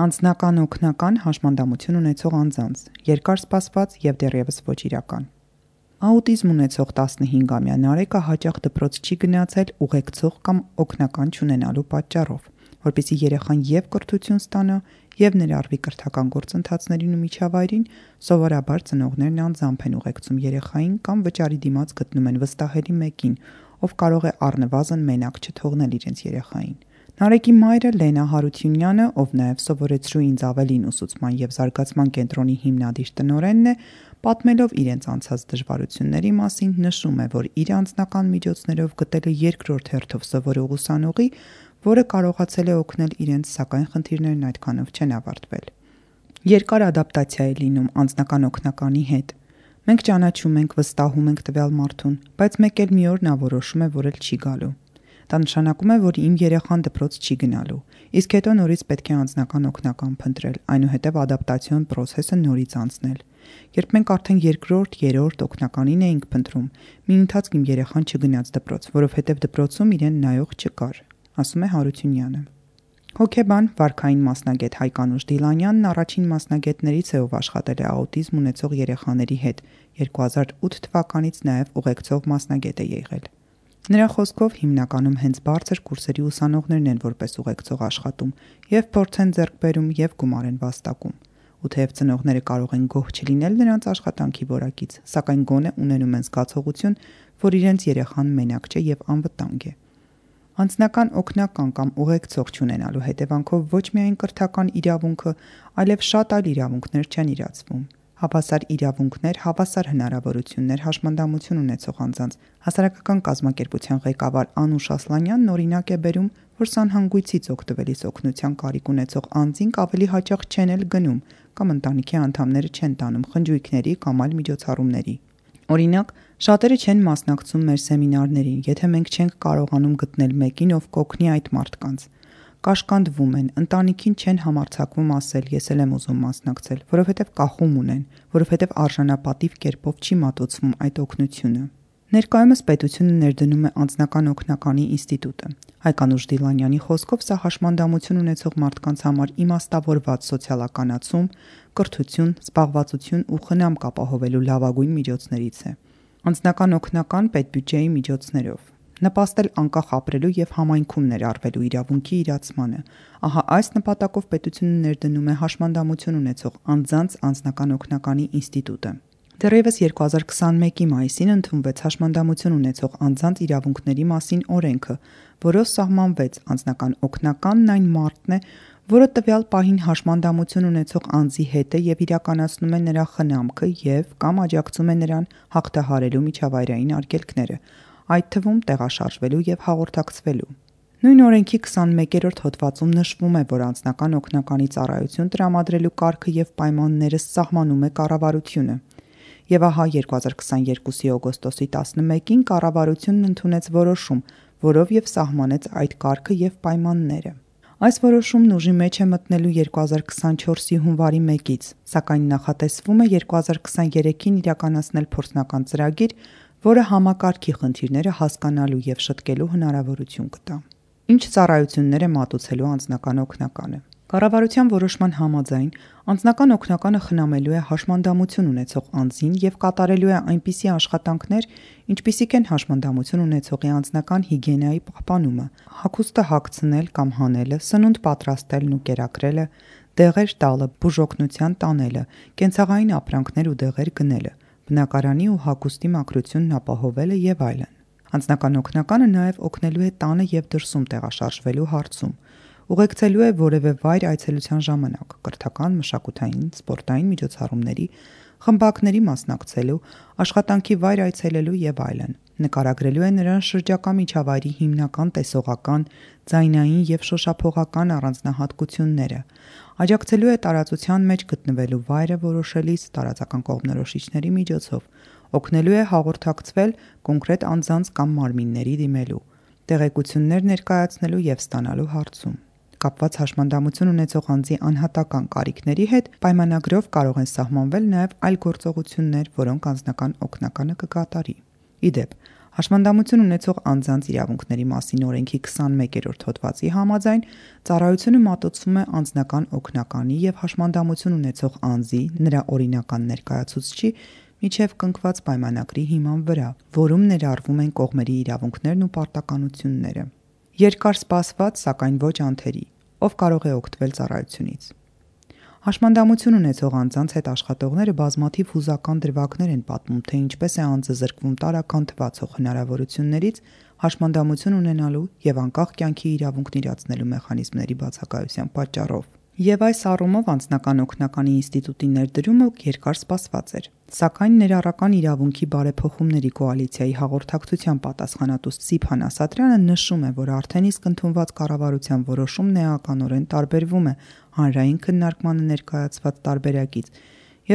Անձնական օգնական հաշմանդամություն ունեցող անձանց, երկար սպասված եւ դեռևս ոչ իրական։ Աուտիզմ ունեցող 15-ամյա Նարեկը հաճախ դպրոց չի գնացել ուղեկցող կամ օգնական չունենալու պատճառով, որպեսզի երեխան եւ կրթություն ստանա եւ ներառվի կրթական գործընթացներին ու միջավայրին, սովորաբար ծնողներն անձամբ են ուղեկցում երեխային կամ վճարի դիմաց գտնում են վստահելի մեկին, ով կարող է առնվազն մենակ չթողնել իրենց երեխային։ Նարեկի մայրը Լենա Հարությունյանը, ով նաև սովորեցրու ինձ ավելին ուսուցման եւ զարգացման կենտրոնի հիմնադիր տնօրենն է, պատմելով իրենց անցած դժվարությունների մասին, նշում է, որ իր անձնական միջոցներով գտել է երկրորդ հերթով սովորող ուսանողի, որը կարողացել է օգնել իրենց, սակայն խնդիրներն այդքանով չեն ավարտվել։ Երկար ադապտացիա է լինում անձնական օգնականի հետ։ Մենք ճանաչում ենք, վստահում ենք տվյալ մարդուն, բայց մեկ էլ մի օր նա որոշում է, որ էլ չի գալու։ Դա նշանակում է, որ իմ երեխան դպրոց չի գնալու, իսկ հետո նորից պետք է անձնական օգնական փնտրել, այնուհետև ադապտացիոն պրոցեսը նորից անցնել։ Երբ մենք արդեն երկրորդ, երրորդ օգնականին էինք փնտրում, մի ընթացք իմ երեխան չգնաց դպրոց, որովհետև դպրոցում իրեն նայող չկար, ասում է Հարությունյանը։ Հոգեբան, վարքային մասնագետ Հայկանուշ Դիլանյանն առաջին մասնագետներից է, ով աշխատել է աուտիզմ ունեցող երեխաների հետ, 2008 թվականից նաև ուղեկցող մասնագետ է եղել։ Նրա խոսքով հիմնականում հենց բարձր կուրսերի ուսանողներն են որպես ուղեկցող աշխատում եւ փորձ են ձեռք բերում եւ գումար են վաստակում։ Ու թեև ծնողները կարող են գոհ չլինել նրանց աշխատանքի որակից, սակայն գոնե ունենում են զգացողություն, որ իրենց երեխան մենակ չէ եւ անվտանգ է։ Անձնական օգնական կամ ուղեկցող չունենալու հետևանքով ոչ միայն կրթական իրավունքը, այլև շատ այլ իրավունքներ չեն իրացվում։ Հավասար իրավունքներ, հավասար հնարավորություններ հաշմանդամություն ունեցող անձանց հասարակական կազմակերպության ղեկավար Անուշ Ասլանյանն օրինակ է բերում, որ սանհանգույցից օգտվելիս օգնության կարիք ունեցող անձինք ավելի հաճախ չեն էլ գնում կամ ընտանիքի անդամները չեն տանում խնջույքների կամ այլ միջոցառումների։ Օրինակ, շատերը չեն մասնակցում մեր սեմինարներին, եթե մենք չենք կարողանում գտնել մեկին, ով կօգնի այդ մարդկանց։ Կաշկանդվում են, ընտանիքին չեն համարձակվում ասել ես էլ եմ ուզում մասնակցել, որովհետև կախում ունեն, որովհետև արժանապատիվ կերպով չի մատուցվում այդ օգնությունը։ Ներկայումս պետությունը ներդնում է անձնական օգնականի ինստիտուտը։ Հայկանուշ Դիլանյանի խոսքով սա հաշմանդամություն ունեցող մարդկանց համար իմաստավորված սոցիալականացում, կրթություն, զբաղվածություն ու խնամք ապահովելու լավագույն միջոցներից է։ Անձնական օգնական պետբյուջեի միջոցներով նպաստել անկախ ապրելու եւ համայնքում ներառվելու իրավունքի իրացմանը։ Ահա այս նպատակով պետությունը ներդնում է հաշմանդամություն ունեցող անձանց անձնական օգնականի ինստիտուտը։ Դեռևս 2021-ի մայիսին ընդունվեց հաշմանդամություն ունեցող անձանց իրավունքների մասին օրենքը, որով սահմանվեց անձնական օգնականն այն մարդն է, որը տվյալ պահին հաշմանդամություն ունեցող անձի հետ է եւ իրականացնում է նրա խնամքը եւ կամ աջակցում է նրան հաղթահարելու միջավայրային արգելքները, այդ թվում տեղաշարժվելու եւ հաղորդակցվելու։ Նույն օրենքի 21-րդ հոդվածում նշվում է, որ անձնական օգնականի ծառայություն տրամադրելու կարգը եւ պայմանները սահմանում է կառավարությունը։ Եվ ահա 2022-ի օգոստոսի 11-ին կառավարությունն ընդունեց որոշում, որով եւ սահմանեց այդ կարգը եւ պայմանները։ Այս որոշումն ուժի մեջ է մտնելու 2024-ի հունվարի 1-ից, սակայն նախատեսվում է 2023-ին իրականացնել փորձնական ծրագիր, որը համակարգի խնդիրները հասկանալու եւ շտկելու հնարավորություն կտա։ Ինչ ծառայություններ է մատուցելու անձնական օգնականը։ Կառավարության որոշման համաձայն անձնական օգնականը խնամելու է հաշմանդամություն ունեցող անձին եւ կատարելու է այնպիսի աշխատանքներ, ինչպիսիք են հաշմանդամություն ունեցողի անձնական հիգիենայի պահպանումը, հագուստը հագցնել կամ հանելը, սնունդ պատրաստելն ու կերակրելը, դեղեր տալը, բուժօգնության տանելը, կենցաղային ապրանքներ ու դեղեր գնելը, բնակարանի ու հագուստի մաքրությունն ապահովելը եւ այլն։ Անձնական օգնականը նաեւ օգնելու է տանը եւ դրսում տեղաշարժվելու հարցում։ Ուղեկցելու է որևէ վայր այցելության ժամանակ, կրթական, մշակութային, սպորտային միջոցառումների, խմբակների մասնակցելու, աշխատանքի վայր այցելելու եւ այլն։ Նկարագրելու է նրան շրջակա միջավայրի հիմնական տեսողական, ձայնային եւ շոշափողական առանձնահատկությունները։ Աջակցելու է տարածության մեջ գտնվելու վայրը որոշելիս տարածական կողմնորոշիչների միջոցով։ Օգնելու է հաղորդակցվել կոնկրետ անձանց կամ մարմինների դիմելու, տեղեկություններ ներկայացնելու եւ ստանալու հարցում։ Կապված հաշմանդամություն ունեցող անձի անհատական կարիքների հետ պայմանագրով կարող են սահմանվել նաև այլ գործողություններ, որոնք անձնական օգնականը կկատարի։ Ի դեպ, Հաշմանդամություն ունեցող անձանց իրավունքների մասին օրենքի 21-րդ հոդվածի համաձայն ծառայությունը մատուցվում է անձնական օգնականի և հաշմանդամություն ունեցող անձի, նրա օրինական ներկայացուցչի միջև կնքված պայմանագրի հիման վրա, որում ներառվում են կողմերի իրավունքներն ու պարտականությունները։ Երկար սպասված, սակայն ոչ անթերի, ով կարող է օգտվել ծառայությունից։ Հաշմանդամություն ունեցող անձանց հետ աշխատողները բազմաթիվ հուզական դրվագներ են պատմում, թե ինչպես է անձը զրկվում տարրական թվացող հնարավորություններից հաշմանդամություն ունենալու և անկախ կյանքի իրավունքն իրացնելու մեխանիզմների բացակայության պատճառով։ Եվ այս առումով անձնական օգնականի ինստիտուտի ներդրումը երկար սպասված էր։ Սակայն ներառական իրավունքի բարեփոխումների կոալիցիայի հաղորդակցության պատասխանատու Սիփան Ասատրյանը նշում է, որ արդեն իսկ ընդունված կառավարության որոշումն էականորեն տարբերվում է հանրային քննարկմանը ներկայացված տարբերակից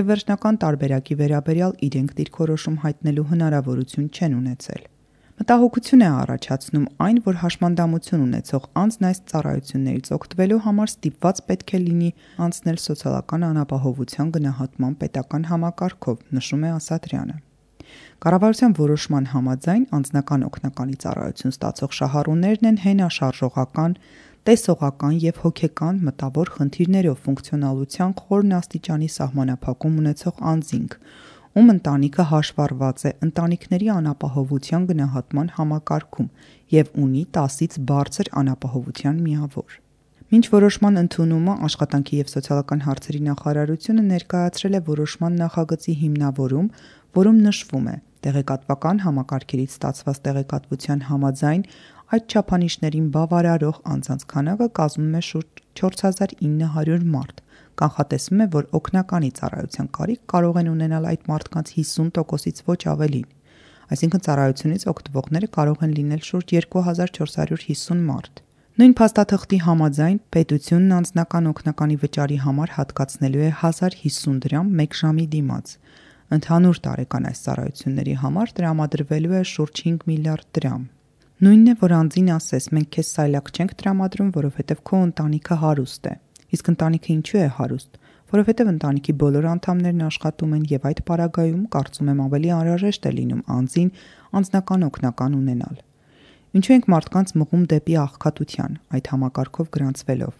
և վերջնական տարբերակի վերաբերյալ իրենք դիրքորոշում հայտնելու հնարավորություն չեն ունեցել։ Մտահոգություն է առաջացնում այն, որ հաշմանդամություն ունեցող անձն այս ծառայություններից օգտվելու համար ստիպված պետք է լինի անցնել սոցիալական անապահովության գնահատման պետական համակարգով, նշում է Ասատրյանը։ Կառավարության որոշման համաձայն անձնական օգնականի ծառայություն ստացող շահառուներն են հենաշարժողական, տեսողական և հոգեկան մտավոր խնդիրներով ֆունկցիոնալության խորն աստիճանի սահմանափակում ունեցող անձինք, ում ընտանիքը հաշվառված է ընտանիքների անապահովության գնահատման համակարգում և ունի 10-ից բարձր անապահովության միավոր։ Մինչ որոշման ընդունումը Աշխատանքի և սոցիալական հարցերի նախարարությունը ներկայացրել է որոշման նախագծի հիմնավորում, որում նշվում է. տեղեկատվական համակարգերից ստացված տեղեկատվության համաձայն այդ չափանիշներին բավարարող անձանց քանակը կազմում է շուրջ 4900 մարդ։ Կանխատեսվում է, որ օգնականի ծառայության կարիք կարող են ունենալ այդ մարդկանց 50%-ից ոչ ավելին, այսինքն ծառայությունից օգտվողները կարող են լինել շուրջ 2450 մարդ։ Նույն փաստաթղթի համաձայն պետությունն անձնական օգնականի վճարի համար հատկացնելու է 1050 դրամ 1 ժամի դիմաց։ Ընդհանուր տարեկան այս ծառայությունների համար տրամադրվելու է շուրջ 5 միլիարդ դրամ։ Նույնն է, որ անձին ասես մենք քեզ սայլակ չենք տրամադրում, որովհետև քո ընտանիքը հարուստ է։ Իսկ ընտանիքը ինչու է հարուստ։ Որովհետև ընտանիքի բոլոր անդամներն աշխատում են և այդ պարագայում կարծում եմ ավելի անհրաժեշտ է լինում անձին անձնական օգնական ունենալ։ Ինչու ենք մարդկանց մղում դեպի աղքատության, այդ համակարգով գրանցվելով։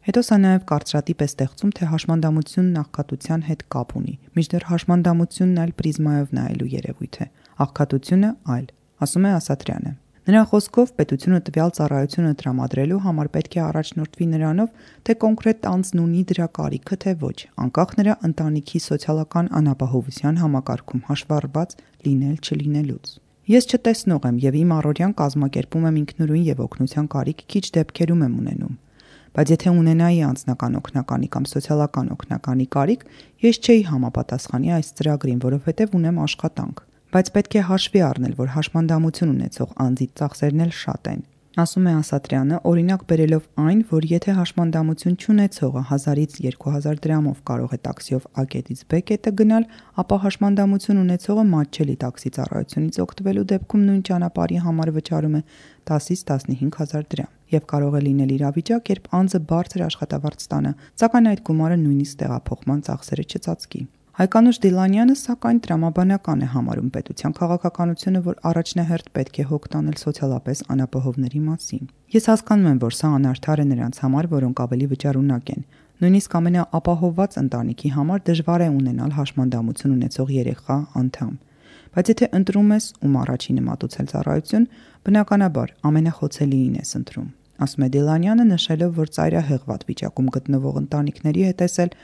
Հետո սա նաև կարծրատիպ է ստեղծում, թե հաշմանդամությունն աղքատության հետ կապ ունի, մինչդեռ հաշմանդամությունն այլ պրիզմայով նայելու երևույթ է, աղքատությունը այլ, ասում է Ասատրյանը։ Նրա խոսքով պետությունը տվյալ ծառայությունը տրամադրելու համար պետք է առաջնորդվի նրանով, թե կոնկրետ անձն ունի դրա կարիքը, թե ոչ, անկախ նրա ընտանիքի սոցիալական անապահովության համակարգում հաշվառված լինել-չլինելուց։ Ես չտեսնող եմ և իմ առօրյան կազմակերպում եմ ինքնուրույն և օգնության կարիք քիչ դեպքերում եմ ունենում։ Բայց եթե ունենայի անձնական օգնականի կամ սոցիալական օգնականի կարիք, ես չէի համապատասխանի այս ծրագրին, որովհետև ունեմ աշխատանք։ Բայց պետք է հաշվի առնել, որ հաշմանդամություն ունեցող անձի ծախսերն էլ շատ են, ասում է Ասատրյանը, օրինակ բերելով այն, որ եթե հաշմանդամություն չունեցողը 1000-ից 2000 դրամով կարող է տաքսիով A կետից B կետը գնալ, ապա հաշմանդամություն ունեցողը մատչելի տաքսի ծառայությունից օգտվելու դեպքում նույն ճանապարհի համար վճարում է 10-ից 15000 դրամ և կարող է լինել իրավիճակ, երբ անձը բարձր աշխատավարձ ստանա, սակայն այդ գումարը նույնիսկ տեղափոխման ծախսերը չծածկի։ Հայկանուշ Դիլանյանը սակայն տրամաբանական է համարում պետության քաղաքականությունը, որ առաջնահերթ պետք է հոգ տանել սոցիալապես անապահովների մասին։ Ես հասկանում եմ, որ սա անարդար է նրանց համար, որոնք ավելի վճարունակ են։ Նույնիսկ ամենաապահովված ընտանիքի համար դժվար է ունենալ հաշմանդամություն ունեցող երեխա անդամ։ Բայց եթե ընտրում ես ում առաջինը մատուցել ծառայություն, բնականաբար ամենախոցելիին ես ընտրում, ասում է Դիլանյանը, նշելով, որ ծայրահեղված վիճակում գտնվող ընտանիքների հետ էլ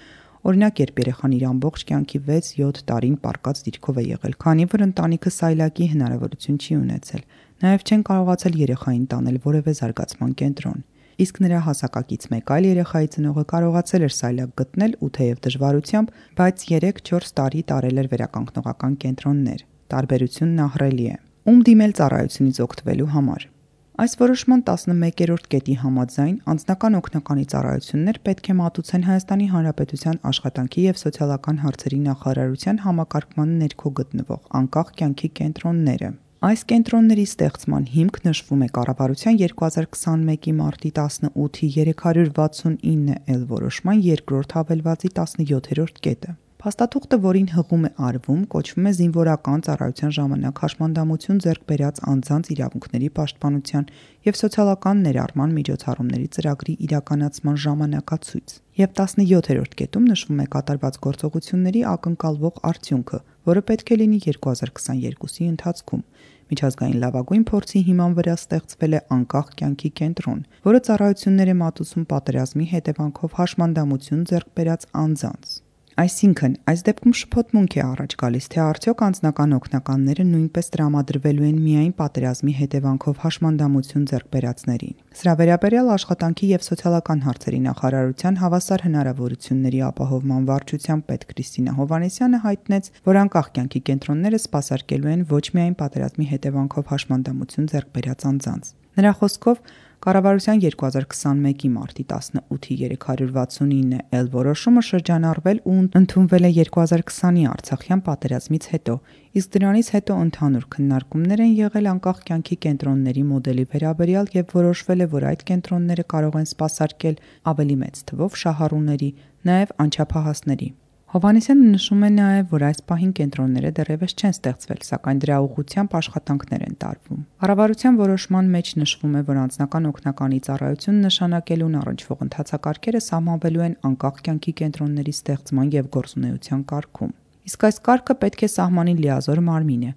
օրինակ երբ երեխան իր ամբողջ կյանքի 6-7 տարին պարկած դիրքով է եղել, քանի որ ընտանիքը սայլակի հնարավորություն չի ունեցել, նաև չեն կարողացել երեխային տանել որևէ զարգացման կենտրոն, իսկ նրա հասակակից մեկ այլ երեխայի ծնողը կարողացել էր սայլակ գտնել ու թեև դժվարությամբ, բայց 3-4 տարի տարել էր վերականգնողական կենտրոններ։ Տարբերությունն ահռելի է։ Ում դիմել ծառայությունից օգտվելու համար։ Այս որոշման 11-րդ կետի համաձայն անձնական օգնականի ծառայություններ պետք է մատուցեն Հայաստանի Հանրապետության Աշխատանքի և սոցիալական հարցերի նախարարության համակարգման ներքո գտնվող անկախ կյանքի կենտրոնները։ Այս կենտրոնների ստեղծման հիմք նշվում է կառավարության 2021-ի մարտի 18-ի 369L որոշման երկրորդ հավելվածի 17-րդ կետը։ Փաստաթուղթը, որին հղում է արվում, կոչվում է զինվորական ծառայության ժամանակ հաշմանդամություն ձեռք բերած անձանց իրավունքների պաշտպանության և սոցիալական ներառման միջոցառումների ծրագրի իրականացման ժամանակացույց, և 17-րդ կետում նշվում է կատարված գործողությունների ակնկալվող արդյունքը, որը պետք է լինի 2022-ի ընթացքում։ Միջազգային լավագույն փորձի հիման վրա ստեղծվել է անկախ կյանքի կենտրոն, որը ծառայություններ է մատուցում պատերազմի հետևանքով հաշմանդամություն ձեռք բերած անձանց։ Այսինքն, այս դեպքում շփոթմունք է առաջ գալիս, թե արդյոք անձնական օգնականները նույնպես տրամադրվելու են միայն պատերազմի հետևանքով հաշմանդամություն ձեռք բերածներին։ Սրա վերաբերյալ Աշխատանքի և սոցիալական հարցերի նախարարության հավասար հնարավորությունների ապահովման վարչության պետ Քրիստինա Հովհաննիսյանը հայտնեց, որ անկախ կյանքի կենտրոնները սպասարկելու են ոչ միայն պատերազմի հետևանքով հաշմանդամություն ձեռք բերած անձանց։ Նրա խոսքով, կառավարության 2021-ի մարտի 18-ի 369L որոշումը շրջանառվել ու ընդունվել է 2020-ի Արցախյան պատերազմից հետո, իսկ դրանից հետո ընդհանուր քննարկումներ են եղել անկախ կյանքի կենտրոնների մոդելի վերաբերյալ և որոշվել է, որ այդ կենտրոնները կարող են սպասարկել ավելի մեծ թվով շահառուների, նաև անչափահասների։ Հովհաննիսյանը նշում է նաև, որ այս պահին կենտրոնները դեռևս չեն ստեղծվել, սակայն դրա ուղղությամբ աշխատանքներ են տարվում։ Կառավարության որոշման մեջ նշվում է, որ անձնական օգնականի ծառայություն նշանակելուն առնչվող ընթացակարգերը սահմանվելու են անկախ կյանքի կենտրոնների ստեղծման և գործունեության կարգում։ Իսկ այս կարգը պետք է սահմանի լիազոր մարմինը,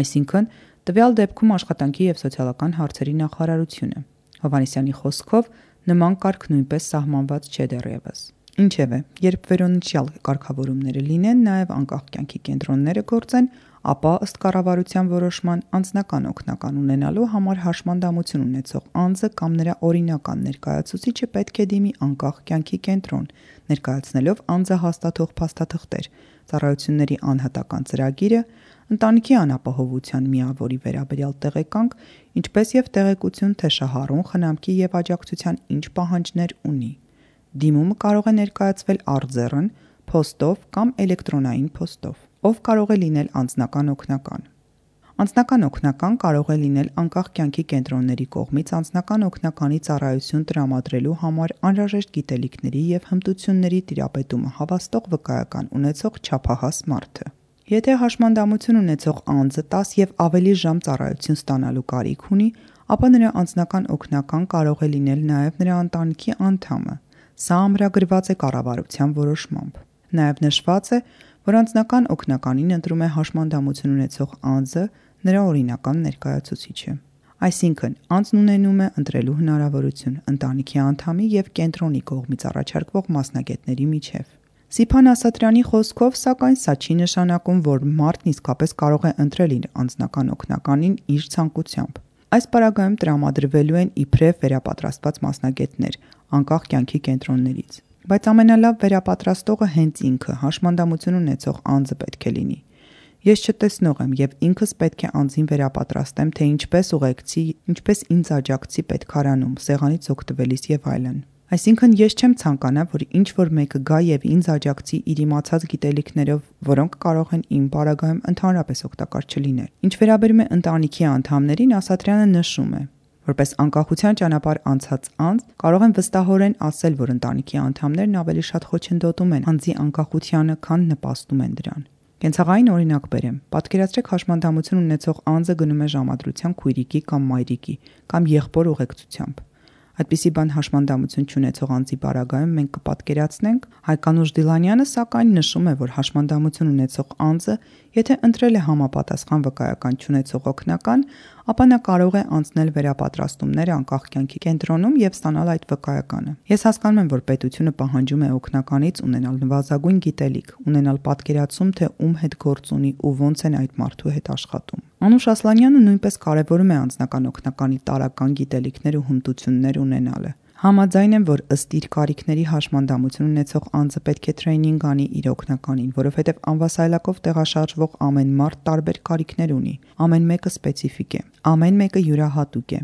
այսինքն տվյալ դեպքում Աշխատանքի և սոցիալական հարցերի նախարարությունը։ Հովհաննիսյանի խոսքով նման կարգ նույնպես սահմանված չէ դեռևս։ Ինչևէ, երբ վերոնշյալ կարգավորումները լինեն, նաև անկախ կյանքի կենտրոնները գործեն, ապա ըստ կառավարության որոշման անձնական օգնական ունենալու համար հաշմանդամություն ունեցող անձը կամ նրա օրինական ներկայացուցիչը պետք է դիմի անկախ կյանքի կենտրոն, ներկայացնելով անձը հաստատող փաստաթղթեր, ծառայությունների անհատական ծրագիրը, ընտանիքի անապահովության միավորի վերաբերյալ տեղեկանք, ինչպես և տեղեկություն, թե շահառուն խնամքի և աջակցության ինչ պահանջներ ունի։ Դիմումը կարող է ներկայացվել արձեռն, փոստով կամ էլեկտրոնային փոստով։ Ով կարող է լինել անձնական օգնական։ Անձնական օգնական կարող է լինել անկախ կյանքի կենտրոնների կողմից անձնական օգնականի ծառայություն տրամադրելու համար անհրաժեշտ գիտելիքների և հմտությունների տիրապետումը հավաստող վկայական ունեցող չափահաս մարդը։ Եթե հաշմանդամություն ունեցող անձը 10 և ավելի ժամ ծառայություն ստանալու կարիք ունի, ապա նրա անձնական օգնական կարող է լինել նաև նրա ընտանիքի անդամը։ Սա ամրագրված է կառավարության որոշմամբ։ Նաև նշված է, որ անձնական օգնականին ընտրում է հաշմանդամություն ունեցող անձը, նրա օրինական ներկայացուցիչը։ Այսինքն, անձն ունենում է ընտրելու հնարավորություն ընտանիքի անդամի և կենտրոնի կողմից առաջարկվող մասնագետների միջև։ Սիփան Ասատրյանի խոսքով, սակայն, սա չի նշանակում, որ մարդն իսկապես կարող է ընտրել իր անձնական օգնականին իր ցանկությամբ։ Այս պարագայում տրամադրվելու են իբրև վերապատրաստված մասնագետներ անկախ կյանքի կենտրոններից, բայց ամենալավ վերապատրաստողը հենց ինքը հաշմանդամություն ունեցող անձը պետք է լինի։ Ես չտեսնող եմ և ինքս պետք է անձին վերապատրաստեմ, թե ինչպես ուղեկցի, ինչպես ինձ աջակցի պետքարանում, սեղանից օգտվելիս և այլն։ Այսինքն ես չեմ ցանկանա, որ ինչ-որ մեկը գա և ինձ աջակցի իր իմացած գիտելիքներով, որոնք կարող են իմ պարագայում ընդհանրապես օգտակար չլինել։ Ինչ վերաբերում է ընտանիքի անդամներին, Ասատրյանը նշում է. Որպես անկախության ճանապարհ անցած անձ կարող եմ վստահորեն ասել, որ ընտանիքի անդամներն ավելի շատ խոչընդոտում են անձի անկախությանը, քան նպաստում են դրան։ Կենցաղային օրինակ բերեմ։ Պատկերացրեք հաշմանդամություն ունեցող անձը գնում է ժամադրության քույրիկի կամ մայրիկի կամ եղբոր ուղեկցությամբ։ Այդպիսի բան հաշմանդամություն չունեցող անձի պարագայում մենք կպատկերացնենք։ Հայկանուշ Դիլանյանը սակայն նշում է, որ հաշմանդամություն ունեցող անձը, եթե ընտրել է համապատասխան վկայական չունեցող օգնական, ապա նա կարող է անցնել վերապատրաստումներ անկախ կյանքի կենտրոնում և ստանալ այդ վկայականը։ Ես հասկանում եմ, որ պետությունը պահանջում է օգնականից ունենալ նվազագույն գիտելիք, ունենալ պատկերացում, թե ում հետ գործ ունի ու ոնց են այդ մարդու հետ աշխատում։ Անուշ Ասլանյանը նույնպես կարևորում է անձնական օգնականի տարրական գիտելիքներ ու հմտություններ ունենալը։ Համաձայն եմ, որ ըստ իր կարիքների հաշմանդամություն ունեցող անձը պետք է թրեյնինգ անի իր օգնականին, որովհետև անվասայլակով տեղաշարժվող ամեն մարդ տարբեր կարիքներ ունի, ամեն մեկը սպეციფիկ է, ամեն մեկը յուրահատուկ է։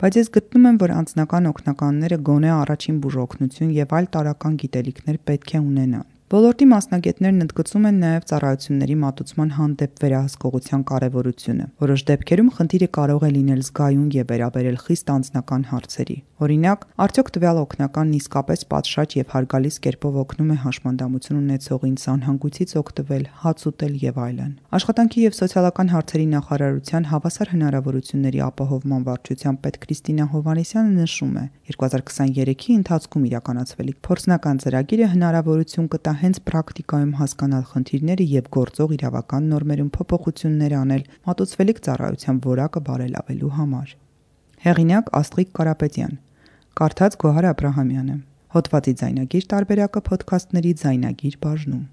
Բայց ես գտնում եմ, որ անձնական օգնականները գոնե առաջին բուժօգնություն և այլ տարրական գիտելիքներ պետք է ունենան։ Ոլորտի մասնագետներն ընդգծում են նաև ծառայությունների մատուցման հանդեպ վերահսկողության կարևորությունը։ Որոշ դեպքերում խնդիրը կարող է լինել զգայուն եւ վերաբերել խիստ անձնական հարցերի։ Օրինակ, արդյոք տվյալ օգնականն իսկապես պատշաճ եւ հարգալից կերպով օգնում է հաշմանդամություն ունեցողին սանհանգույցից օգտվել, հաց ուտել եւ այլն։ Աշխատանքի եւ սոցիալական հարցերի նախարարության հավասար հնարավորությունների ապահովման վարչության պետ Քրիստինա Հովհաննիսյանը նշում է. 2023-ի ընթացքում իրականացվելիք փորձնական ծրագիրը հնարավորություն կտա հենց պրակտիկայում հասկանալ խնդիրները եւ գործող իրավական նորմերում փոփոխություններ անել մատուցվելիք ծառայության որակը բարելավելու համար։ Հեղինակ Աստղիկ Կարապետյան, կարդաց Գոհար Աբրահամյանը։ Հոդվածի ձայնագիր տարբերակը ոդքասթների ձայնագիր բաժնում։